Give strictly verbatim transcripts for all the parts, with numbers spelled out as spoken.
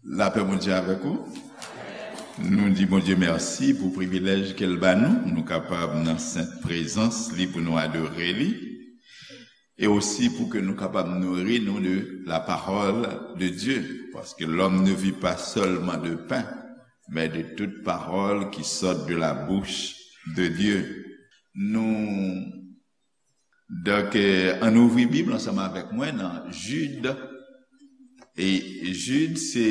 Lapè Bondye avèk ou. Nou di Bondye mèsi pou privilèj ke l ba nou, pou nou kapab nan sent prezans li, pou nou adore li, e osi pou ke nou kapab nouri nou de la parole de Dieu, parce que l'homme ne vit pas seulement de pain, mais de toute parole qui sort de la bouche de Dieu. Nou Donk, eh, ann ouvri Bib ansanm avèk mwen nan Jid. E Jid se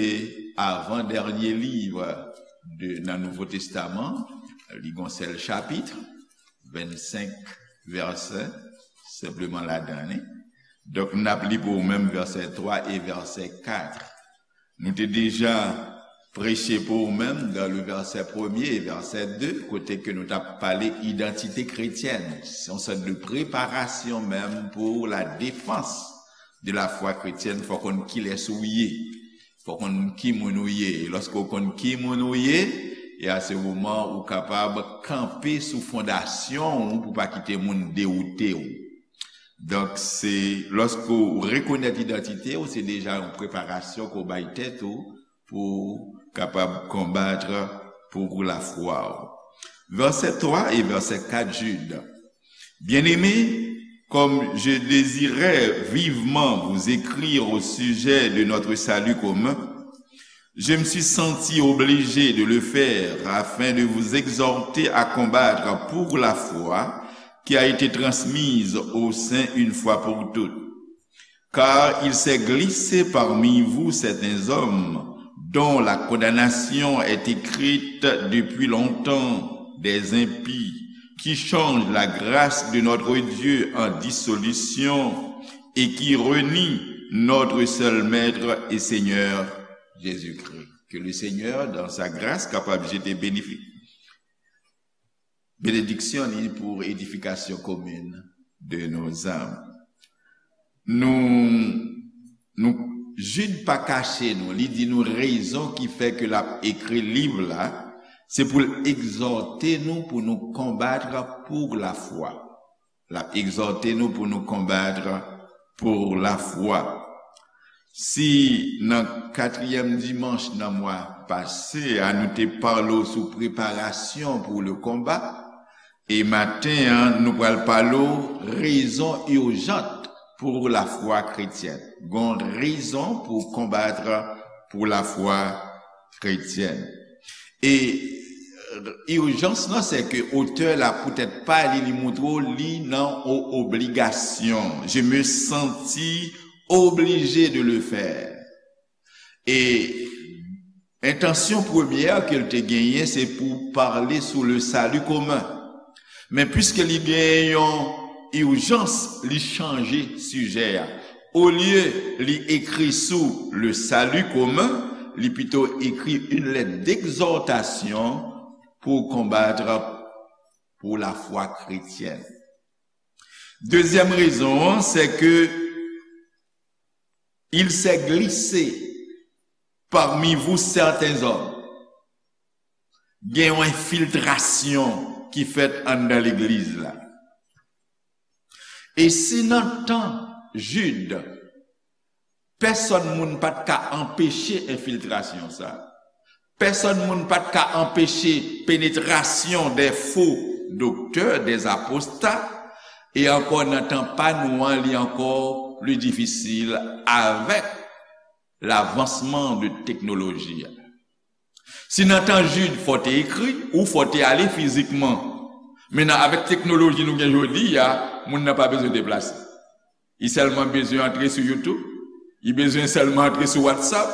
avan dènye liv de, nan Nouvo Testaman. Li gon sèl chapit, vennsenk vèsè senpleman ladan li. Donk, n ap li pou ou menm vèsè twa e vèsè kat. Nou te deja preche pou ou menm dan le vèsè premye e vèsè de, kote ke nou t ap pale idantite kretyèn. Se yon sòt de preparasyon menm pou la defans de la fwa kretyèn. Fò konn kilès ou ye. Fò konn ki moun ou ye. E lòske w konn ki moun ou ye, e a se moman ou kapab kanpe sou fondasyon ou pou pa kite moun dewoute w. Donk, se lòske w rekonèt idantite w, se deja yon preparasyon ke w bay tèt ou pou w kapab konbat pou lafwa w. Vèsè twa e vèsè kat, Jid. Bien-aimés, comme je désirais vivement vous écrire au sujet de notre salut commun, je me suis senti obligé de le faire afin de vous exhorter à combattre pour la foi qui a été transmise aux saints une fois pour toutes. Car il s'est glissé parmi vous certains hommes dont la condamnation est écrite depuis longtemps, des impies, qui changent la grâce de notre Dieu en dissolution et qui renient notre seul Maître et Seigneur Jésus-Christ. Que le Seigneur, dans sa grâce, kapab jete bénéfi-, benediksyon li pou edifikasyon komin de nos âmes. Nou, nou, Jid pa kache nou, li di nou rezon ki fè ke l ap ekri liv la, se pou l egzòte nou pou nou konbat pou lafwa. L ap egzòte nou pou nou konbat pou lafwa. Si nan katriyèm dimanch nan mwa pase a, nou te pale w sou preparasyon pou le konba, e maten an, nou pral pale w rezon ijans pou lafwa kretyèn. Gon rezon pou konbat pou lafwa kretyèn. E, euh, ijans lan, se ke otè la, poutèt pa li, li montre w li nan o-, obligasyon. Je me sentis obligé de le faire. E entansyon premyè ke l te genyen, se pou pale sou le salut commun. Men piske li gen yon ijans, li chanje sijè a. Olye li ekri sou le salut commun, li pito ekri une lettre d'exhortation pou konbat pou lafwa kretyèn. Dezyèm rezon an, se ke il s'est glissé parmi vous certains hommes. Gen yon enfiltrasyon ki fèt anndan legliz la. E si nan tan Jid, pèsonn moun pa t ka anpeche enfiltrasyon sa, pèsonn moun pa t ka anpeche penetrasyon de fo doktè, de aposta, e ankò nan tan pa nou an, li ankò pli difisil avèk lavansman de teknoloji a. Si nan tan Jid, fò te ekri, ou fò te ale fizikman. Men nan, avèk teknoloji nou gen jodi a, moun nan pa bezwen deplase. Li sèlman bezwen antre sou YouTube, li bezwen sèlman antre sou WhatsApp,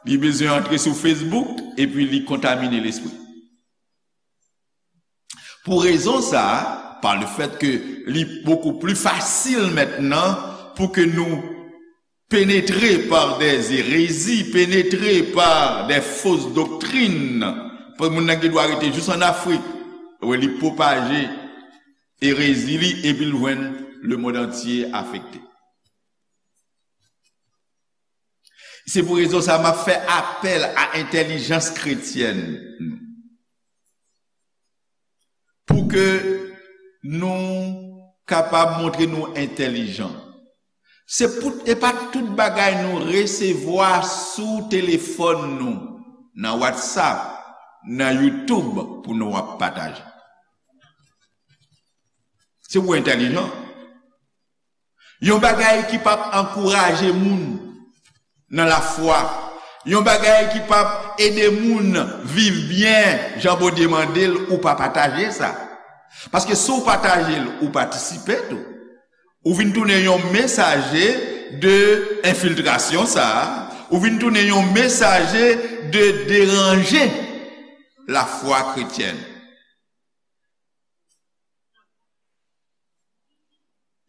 li bezwen antre sou Facebook, epi li kontamine lespri. Pou rezon sa a, par le fait que li beaucoup plus facile maintenant pou ke nou pénétrés par des hérésies, pénétrés par des fausses doctrines. Paske moun nan gen dwa rete jis ann Afrik, wè li pwopaje erezi li, epi l jwenn le monde entier afekte. Se pou rezon sa a, m ap fè apèl a entèlijans kretyèn. Pou ke nou kapab montre nou entèlijan. Se pou, e pa tout bagay nou resevwa sou telefòn nou, nan WhatsApp, nan YouTube pou nou ap pataje. Se pou entèlijan. Yon bagay ki p ap ankouraje moun nan lafwa. Yon bagay ki p ap ede moun viv byen jan Bondye mande l, ou pa pataje sa. Paske si w pataje l, ou patisipe tou. Ou vin tounen yon mesaje de enfiltrasyon sa a. Ou vin tounen yon mesaje de deranje lafwa kretyèn.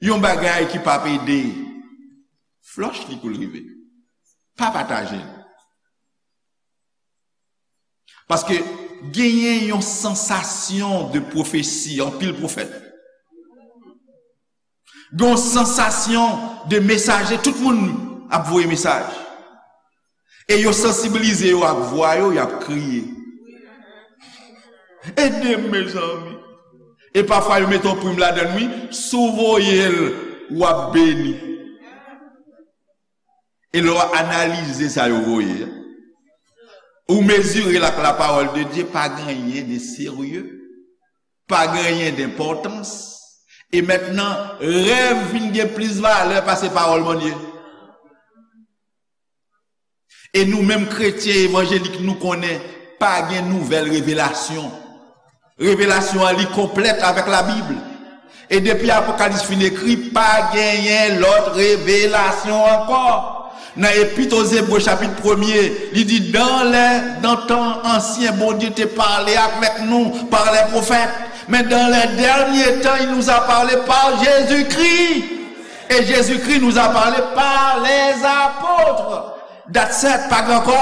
Yon bagay ki p ap ede, flòch li kou l rive. Pa pataje l. Paske genyen yon sansasyon de pwofesi, anpil pwofèt. Gen yon sansasyon de mesaje, tout moun ap voye mesaj. E yo sansibilize yo ak vwa yo, y ap kriye. Ede m, mezanmi. E pafwa yo mete yon prim ladan l, wi, si w voye l, w ap beni. E lè w analize sa yo voye a, ou mezire l ak la parole de Dieu, pa gen anyen de serye, pa gen anyen de enpòtans. E mentnan, rèv vin gen plis valè pase pawòl Bondye. E nou menm kretyen evanjelik, nou konnen pa gen nouvèl revelasyon. Revelasyon an li konplèt avèk Labib. E depi Apokalips fin ekri, pa genyen lòt revelasyon ankò. Nan Epit aux Hébreux chapit premye, li di, dans les, dans tan ansyen, Bondye te pale avèk nou par les prophètes. Mais dans les derniers temps, il nous a parlé par Jésus-Christ. Et Jésus-Christ nous a parlé par les apôtres. That's it, pa gen ankò.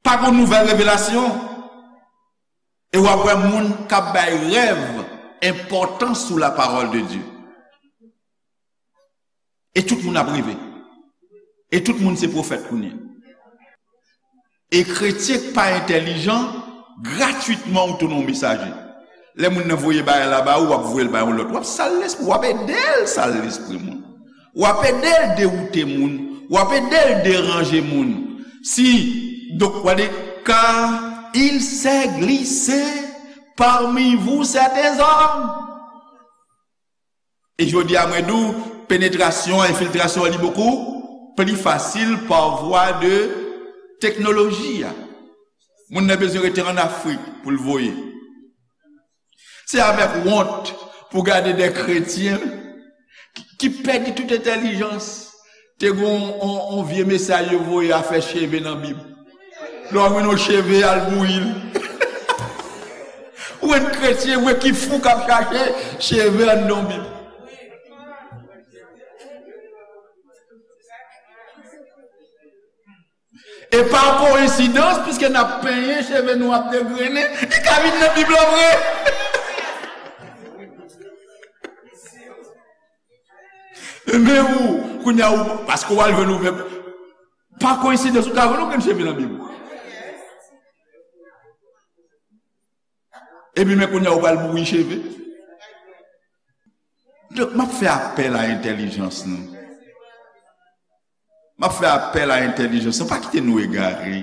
Pa gen nouvèl revelasyon. E w ap wè moun k ap bay rèv enpòtans sou la parole de Dieu. E tout moun ap reve. E tout moun se pwofèt kounye a. E kretyen k pa entèlijan, gratwitman ou tounen yon mesaje. Lè moun nan voye bagay la ba ou, w ap voye l ba yon lòt. W ap sal lespri, w ap ede l sal lespri moun. W ap ede l dewoute moun. W ap ede l deranje moun. Si, donk, w ap di, car il s'est glissé parmi vous certains hommes. E jodi a, mwen di w, penetrasyon, enfiltrasyon an li bokou pli fasil pa vwa de teknoloji a. Moun nan bezwen rete ann Afrik pou l voye. Se avèk wont pou gade de kretyen ki, ki pèdi tout entèlijans. Te gen yon, yon, yon vye mesaj yo voye afè cheve nan Bib. Lè w jwenn yon cheve, al bouyi l. Ou wè kretyen vre ki fou k ap chache cheve anndan yon Bib. E pa koyensidans, piske n ap penyen, cheve nou ap degrennen, li ka vin nan Bib lan vre. Men ou, kounye a ou, paske w al jwenn ouvè, pa koyensidans ou ka jwenn yon grenn cheve nan Bib ou. Epi men kounye a ou pral bouyi cheve. Donk, m ap fè apèl a entèlijans nou. M ap fè apèl a entèlijans nou. Pa kite nou egare.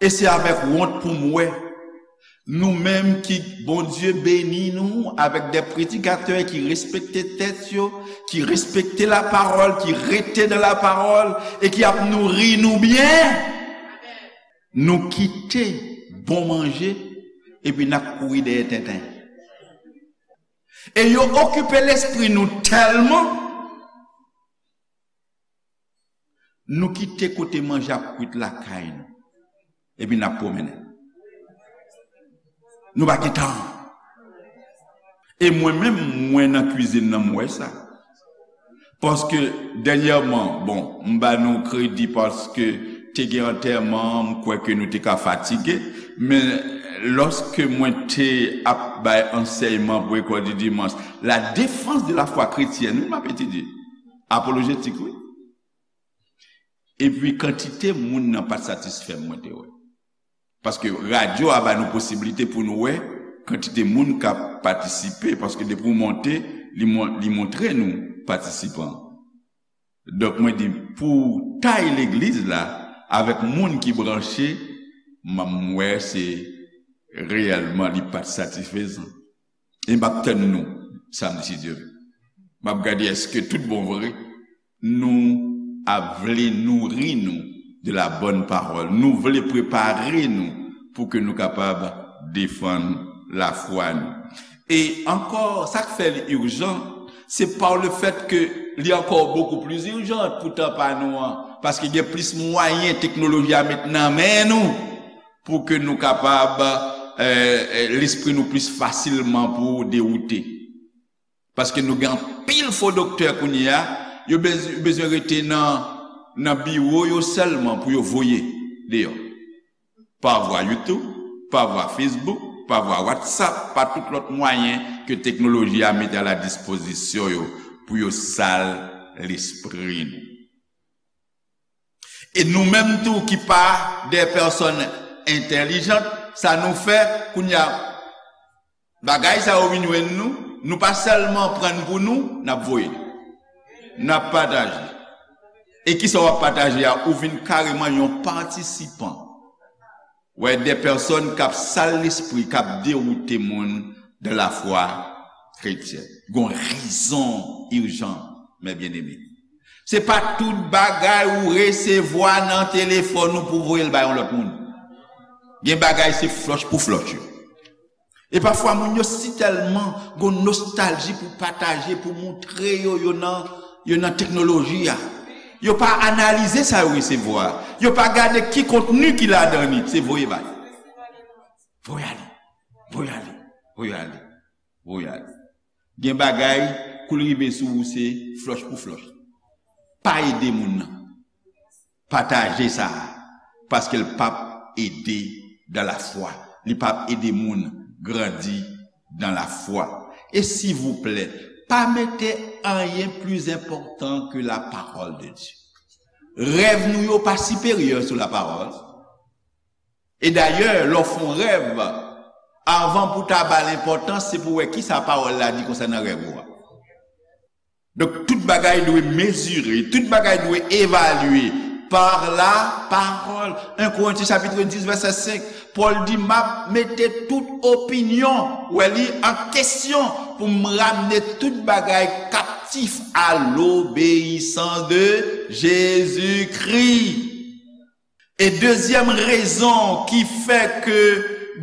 E se avèk wont pou m wè nou menm ki Bondye beni nou avèk de predikatè ki respekte tèt yo, ki respekte lapawòl, ki rete nan lapawòl e ki ap nouri nou byen. Nou kite bon manje epi n ap kouri dèyè tenten. E yo okipe lespri nou tèlman, nou kite kote manje ap kwit lakay nou. Epi n ap pwomennen. Nou pa gen tan. E mwen menm, mwen nan kwizin nan, m wè sa. Paske dènyèman, bon, m ba nou kredi paske te gen antèman, m kwè ke nou te ka fatige, men lòske mwen te ap bay ansèyman pou lekòl di dimanch, la défense de la foi chrétienne, wi, m ap etidye. Apolojetik, wi. Epi kantite moun nan pa t satisfè m, mwen te wè. Paske radyo a ba nou posiblite pou nou wè kantite moun k ap patisipe, paske depi w monte, Li, mon- li montre nou patisipan. Donk, mwen di, pou tay legliz la, avèk moun ki branche, m wè se reyèlman li pa t satisfezan. E m ap tann nou samdi, si Dye vle. M ap gade èske tout bon vre nou ap vle nouri nou de la bonne parole. Nou vle prepare nou pou ke nou kapab defann lafwa nou. E ankò, sa k fè li ijan, se pa le fèt ke li ankò bokou pli ijan pou tan pa nou an, paske gen plis mwayen teknoloji a met nan men nou pou ke nou kapab, eh, eh, lespri nou plis fasilman pou dewoute. Paske nou gen anpil fo doktè kounye a, yo bez- yo bezwen rete nan, nan biwo yo sèlman pou yo voye deyò. Pa vwa YouTube, pa vwa Facebook, pa vwa WhatsApp, pa tout lòt mwayen ke teknoloji a mete a la dispozisyon yo pou yo sal lespri nou. E nou menm tou ki pa de pèsòn entèlijant, sa nou fè kounye a, bagay sa yo vin jwenn nou, nou pa sèlman pran l pou nou, n ap voye l. N ap pataje. E kisa w ap pataje a? Ou vin kareman yon patisipan. Wè, de pèsòn k ap sal lespri, k ap dewoute moun de la fwa kretyèn. Gon rezon ijan, mes bien-aimés. Se pa tout bagay ou resevwa nan telefòn ou pou voye l bay yon lòt moun. Gen bagay se flòch pou flòch yo. E pafwa moun yo si tèlman gon nostalji pou pataje, pou moutre yo, yo nan, yo nan teknoloji a. Yo pa analize sa yo resevwa. Yo pa gade ki kontni ki ladan li, se voye bay. Voye ale, voye ale, voye ale, voye ale. Gen bagay, kou l rive sou ou, se flòch pou flòch. Pa ede moun nan. Pataje sa a, paske l p ap ede dan lafwa. Li p ap ede moun grandi dan lafwa. E silvouplè, pa mete anyen pli enpòtan ke la parole de Dieu. Rèv nou yo pa siperyè sou la parole. E dayè, lè w fè yon rèv, avan pou w ta ba l enpòtans, se pou w wè kisa pawòl la di konsènan rèv ou a. Donk, tout bagay dwe mezire, tout bagay dwe evalye par la parole. En Korentyen chapit dis, vèsè senk, Pòl di, m ap mete tout opinyon, wè li, an kesyon pou m ramne tout bagay kaptif à l'obéissance de Jésus-Christ. E dezyèm rezon ki fè ke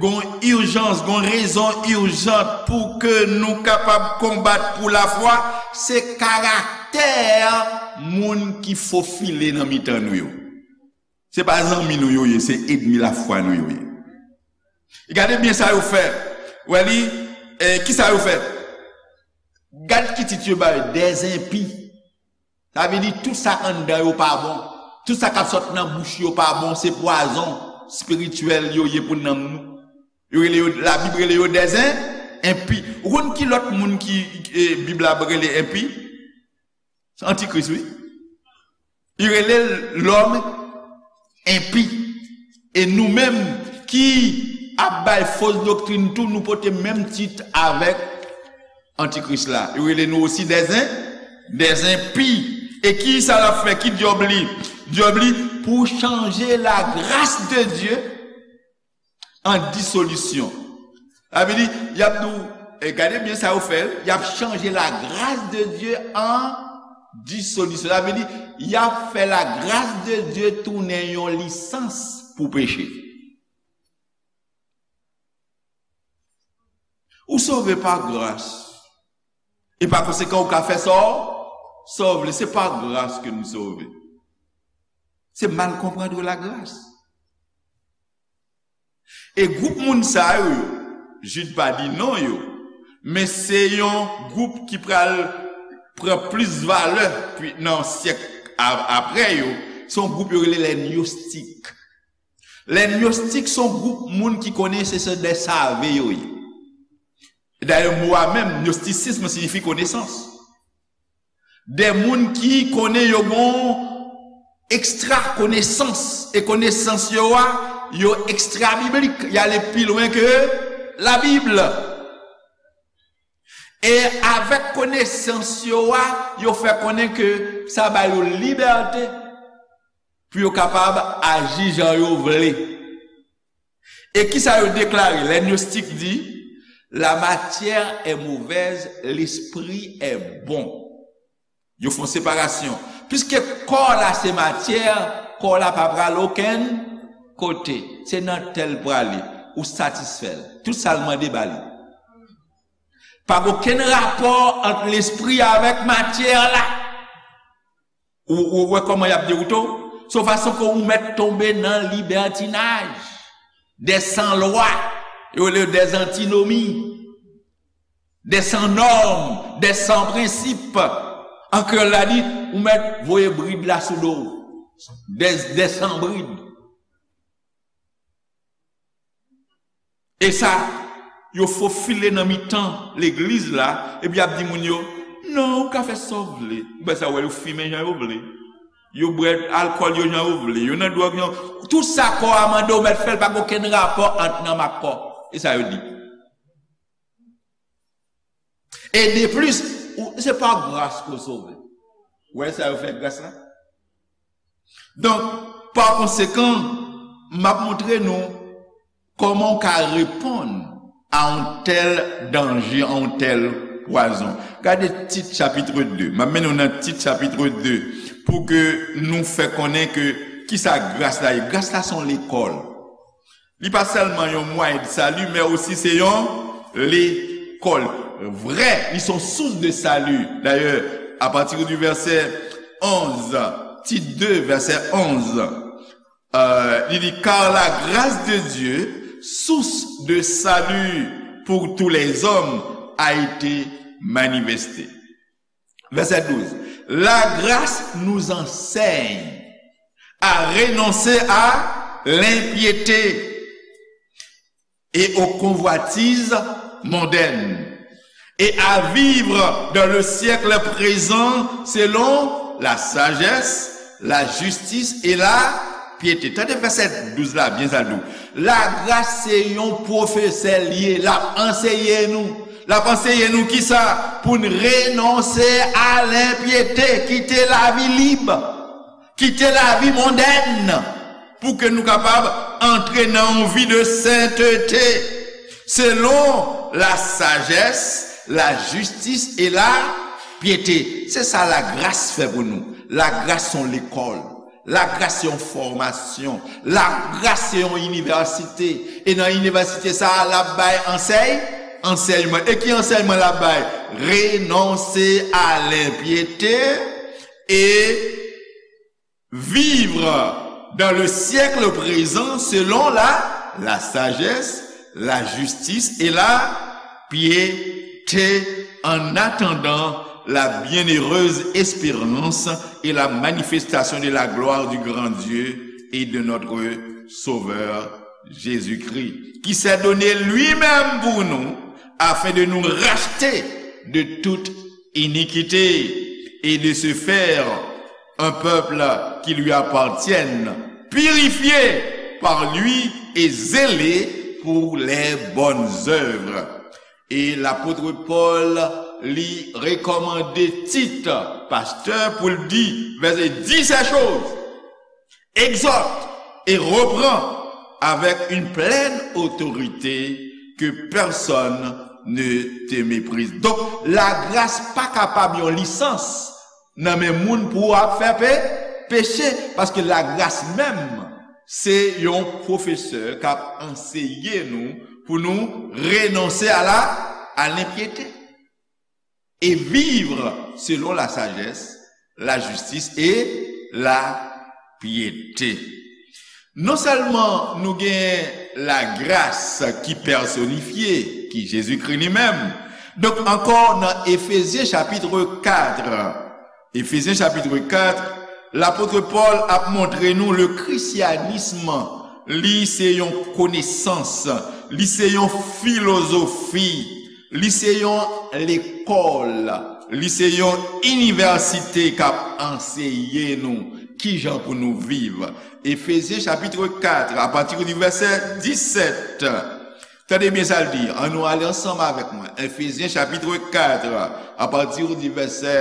gon ijans, gon rezon ijan pou ke nou kapab konbat pou lafwa, se karaktè moun ki fofile nan mitan nou yo. Se pa zanmi nou yo ye, se ènmi lafwa nou yo ye. E gade byen sa yo fè. Wè li, eh, ki sa yo fè? Gad ki tit yo ba yo, des impies. Sa vle di tout sa k anndan yo pa bon. Tout sa k ap sot nan bouch yo pa bon, se pwazon espirityèl yo ye pou nanm nou. Yo rele yo, Labib rele yo des in- impies. Ou konn ki lòt moun ki, eh, Bib la rele enpi? Se antikris, wi. Li rele l lòm enpi. E nou menm ki ap bay fos doktrin tou, nou pote menm tit avèk antikris la. Yo rele nou osi des in- des impies. E ki sa l ap fè? Ki djòb li? Djòb li pou chanje la grâce de Dieu en dissolution. Sa vle di, y ap di w, e gade byen sa yo fè, y ap chanje la grâce de Dieu en dissolution. Sa vle di, y ap fè la grâce de Dieu tounen yon lisans pou peche. Ou sove pa gras. E pa konsekan, ou ka fè sa w, sa w vle. Se pa gras ke nou sove. Se mal konprann la grâce. E gwoup moun sa yo, yo, Jid pa di non yo, men se yon gwoup ki pral pran plis valè pi- nan syèk a- apre yo. Se yon gwoup yo rele lè gnostik. Lè gnostik se yon gwoup moun ki konnen se, se de save yo ye. Dayè, mo a menm, gnostisism, siyifi konesans. De moun ki konnen yo gon ekstra konesans, e konesans yo a, yo ekstra biblik, y ale pi lwen ke Labib. E avèk konesans yo a, yo fè konnen ke sa ba yo libète pou yo kapab aji jan yo vle. E kisa yo deklare? Lè gnostik di, la matière est mauvaise, l'esprit est bon. Yo fè yon separasyon. Piske kò la se matyè, kò la pa pral okenn kote. Se nan tèl prale, ou satisfè l. Tout sa l mande ba li. Pa gen okenn rapò ant lespri avèk matyè la. Ou, ou wè kòman y ap dewoute w? Se yon fason ke ou mèt tonbe nan libètinaj, des sans loi, yo rele yo des antinomie, des sans norme, des sans principe. An kreyòl la di, ou mèt voye brid la sou do w. Des, des sans bride. E sa, yo fofile nan mitan legliz la, epi y ap di moun yo, non, ou ka fè sa w vle. Ou wè sa, wè, yo fimen jan yo vle. Yo bwè alkòl yo jan yo vle. Yo nan dwòg jan. Tout sa kò a mande w mèt fè l, pa gen okenn rapò ant nanm ak kò. E sa yo di. E de plis, ou, se pa gras ke w sove. Ou wè sa yo fè ak gras la? Donk, pa konsekan, m ap montre nou kòman w ka reponn a yon tèl danje, a yon tèl pwazon. Gade Tit chapit de. M ap mennen w nan Tit chapit de pou ke nou fè konnen ke kisa gras la ye. Gras la se yon lekòl. Li pa sèlman yon mwayen de sali, men osi se yon lekòl. Vrè, li se yon source de salut. D'ailleurs, à partir du verset onze, Tit de, verset onze, euh, li di, car la grâce de Dieu, source de salut pour tous les hommes, a été manifestée. Verset douze. La grâce nous enseigne à renoncer à l'impiété et aux convoitises mondaines et à vivre dans le siècle présent selon la sagesse, la justice et la piété. Tande vèsè douz la byen, sa l di w. Lagras se yon pwofesè l ye, l ap anseye nou. L ap anseye nou kisa? Pou n renonse a lenpyete, kite lavi lib, kite lavi mondèn, pou ke nou kapab antre nan yon vi de sentete, selon la sagesse, la justice et la piété. Se sa lagras fè pou nou. Lagras se yon lekòl. Lagras se yon fòmasyon. Lagras se yon inivèsite. E nan inivèsite sa a, l ap bay ansèy, ansèyman. E ki ansèyman l ap bay? Renonse a lenpyete e vivre dans le siècle présent selon la, la sagesse, la justice et la piété, en attendant la bienheureuse espérance et la manifestation de la gloire du grand Dieu et de notre Sauveur Jésus-Christ, qui s'est donné lui-même pour nous, afin de nous racheter de toute iniquité et de se faire un peuple qui lui appartienne, purifié par lui et zélé pour les bonnes œuvres. E lapot Pòl, li rekòmande Tit, pastè, pou l di, vèsè, dis ces choses, exhorte et reprend avec une pleine autorité, que personne ne te méprise. Donk, lagras pa kapab yon lisans nan men moun pou w ap fè pe-, peche, paske lagras menm, se yon pwofesè k ap anseye nou pou nou renonse a la, a lenpyete, et vivre selon la sagesse, la justice et la piété. Non sèlman nou gen lagras ki pèsonifye, ki Jezikri li menm. Donk, ankò nan Efezyen chapit kat, Efezyen chapit kat, lapot Pòl ap montre nou le christianisme, li se yon konesans, li se yon filozofi, li se yon lekòl, li se yon inivèsite k ap anseye nou kijan pou nou viv. Efezyen chapit kat, apati di vèsè disèt. Tande byen sa l di. Ann nou ale ansanm avèk mwen. Efezyen chapit kat, apati di vèsè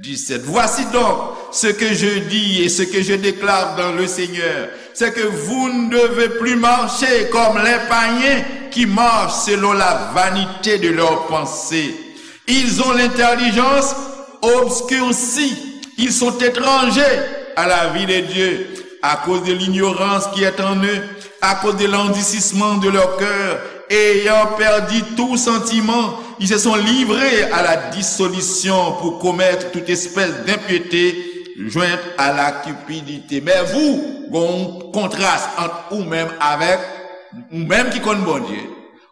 disèt. Voici donc ce que je dis et ce que je déclare dans le Seigneur, c'est que vous ne devez plus marcher comme les païens qui marchent selon la vanité de leurs pensées. Ils ont l'intelligence obscurcie. Ils sont étrangers à la vie de Dieu à cause de l'ignorance qui est en eux, à cause de l'endurcissement de leur cœur, ayant perdu tout sentiment, ils se sont livrés à la dissolution pour commettre toute espèce d'impiété jointe à la cupidité. Men vous, gon kontras ant ou menm avèk ou menm ki konn Bondye,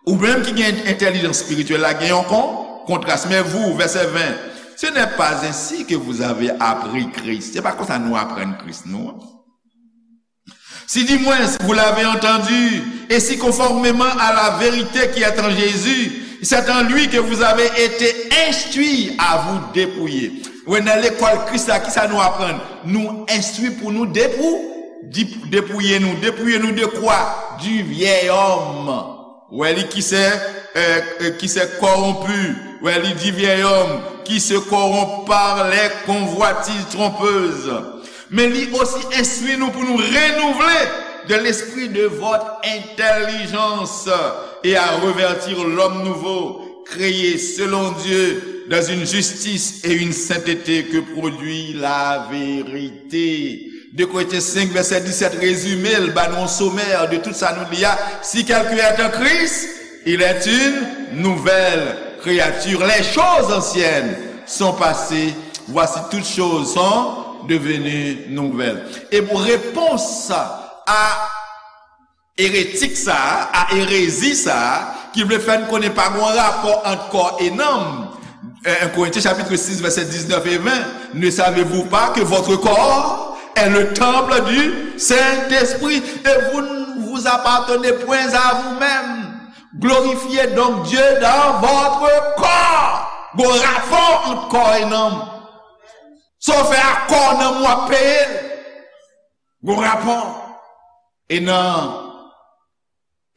ou menm ki gen entèlijans espirityèl la, gen yon kon kontras. Men vous, verset vingt, ce n'est pas ainsi que vous avez appris Christ. Se pa konsa nou aprann Kris nou. Si du moins vous l'avez entendu, et si conformément à la vérité qui est en Jésus, c'est en lui que vous avez été instruits, à vous dépouiller. Wè, nan lekòl Kris la, ki sa nou aprann? Nou enstwi pou nou depou, di- depouye nou. Depouye nou de kwa? Du vieil homme. Wè li qui s'est, euh, euh, qui s'est corrompu. Wè li, du vieil homme qui se corrompt par les convoitises trompeuses. Men li osi enstwi nou pou nou renouvle de l'esprit de votre intelligence et à revêtir l'homme nouveau, créé selon Dieu dans une justice et une sainteté que produit la vérité. De Korentyen senk, vèsè disèt, rezime l, ba nou yon somè de tout sa nou li a. Si quelqu'un est en Christ, il est une nouvelle créature. Les choses anciennes sont passées, voici toutes choses sont devenues nouvelles. E pou repons a eretik sa a, a erezi sa a, ki vle fè n konnen pa gen rapò ant kò e nanm. Un Corinthiens chapitre six, verset dix-neuf et vingt. Ne savez-vous pas que votre corps est le temple du Saint-Esprit et vous ne vous appartenez point à vous-même? Glorifiez donc Dieu dans votre corps. Gon rapò ant kò e nanm. Sa w fè ak kò w, nanm ou ap peye l. Gon rapò. E nan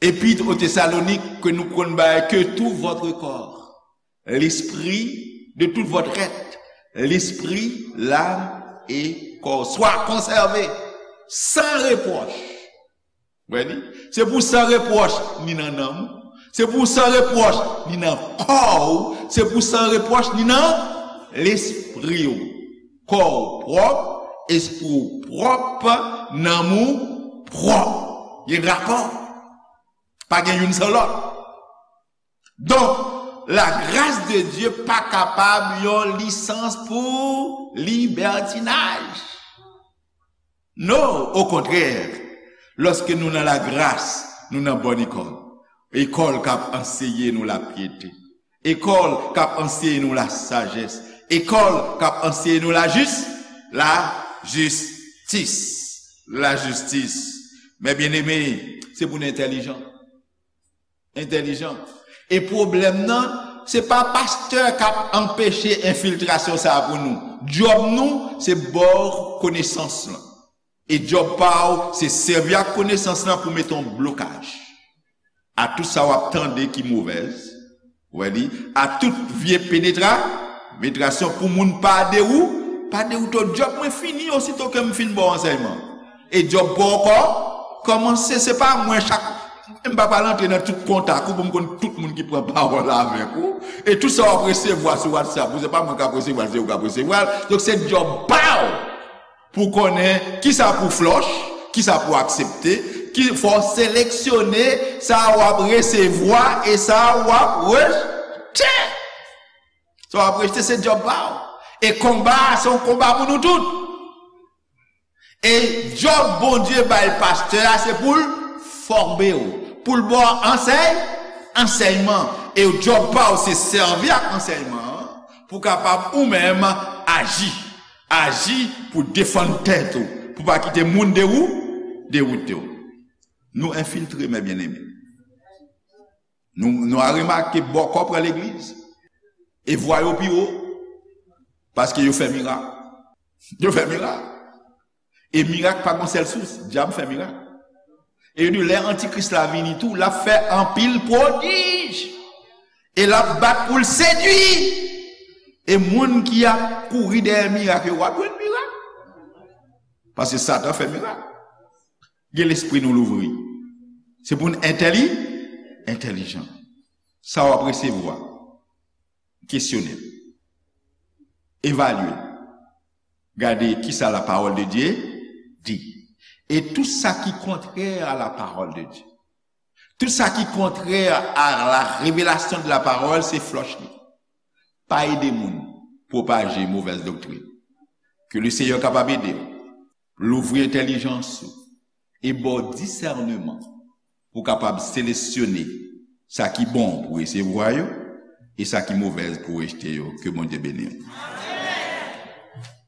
Epître aux Thessaloniques ke nou konn bay, que tout votre corps, l'esprit, de tout votre être, l'esprit, l'âme et corps, soit conservé sans reproche. Wè li? Se pou san repwòch ni nan nanm ou, se pou san repwòch ni nan kò ou, se pou san repwòch ni nan lespri ou. Kò w pwòp, espri w pwòp, nanm ou pwòp. Gen rapò. Pa gen youn san lòt. Donk, lagras de Dye pa kapab yon lisans pou libètinaj. Non, okontrè, lòske nou nan lagras, nou nan bòn ekòl. Ekòl k ap anseye nou lapyete. Ekòl k ap anseye nou lasajès. Ekòl k ap anseye nou lajis-, lajistis. Lajistis. Men byeneme, se pou nou entèlijan. Entèlijan. E pwoblèm nan, se pa pastè k ap anpeche enfiltrasyon sa a pou nou. Djòb nou, se ba w konesans lan. E djòb pa w, se sèvi ak konesans lan pou mete yon blokaj a tout sa w ap tande ki movèz. Wè li, a tout vye penetra-, penetrasyon pou moun pa dewou-, pa dewoute w. Djòb mwen fini osito ke m fin ba w ansèyman. E djòb pa w ankò kòmanse, se pa mwen chak, m pa pral antre nan tout kontak ou pou m konn tout moun ki pran pawòl avèk ou. E tout sa w ap resevwa sou WhatsApp ou, se pa mwen k ap resevwa l, se ou k ap resevwa l. Donk se djòb pa w pou konnen kisa pou flòch, kisa pou aksepte, ki fò w seleksyone sa w ap resevwa e sa w ap rejte. Sa w ap rejte se djòb pa w. E konba a se yon konba pou nou tout. E djòb Bondye bay pastè a se pou l fòme w, pou l ba w ansèy, ansèyman. E djòb pa w se sèvi ak ansèyman an pou w kapab ou menm aji. Aji pou defann tèt ou, pou pa kite moun dewou-, dewoute w. Nou enfiltre, men byeneme. Nou, nou a remake bòkò pran legliz. E vwa yo pi wo. Paske yo fè mirak. Yo fè mirak. E mirak pa gon sèl sous. Dyab fè mirak. E yo di lè antikris la vini tou, l ap fè anpil pwodij. E l ap bat pou l sedui. E moun ki ap kouri dèyè mirak yo, w ap jwenn mirak. Paske Satan fè mirak. Gen lespri nou louvri. Se pou n entèli, entèlijan. Sa w ap resevwa, kesyone l. Evalye l. Gade kisa la parole de Dieu dit. E tout sa ki kontrè a la parole de Dieu. Tout sa ki kontrè a la revelasyon de la parole, se flòch li. Pa ede moun pwopaje movèz doktrin. Ke le Seyè kapab ede w. Louvri entèlijans ou. E ba w disèneman pou w kapab seleksyone sa ki bon pou resevwa yo e sa ki movèz pou rejte yo. Ke Bondye beni w.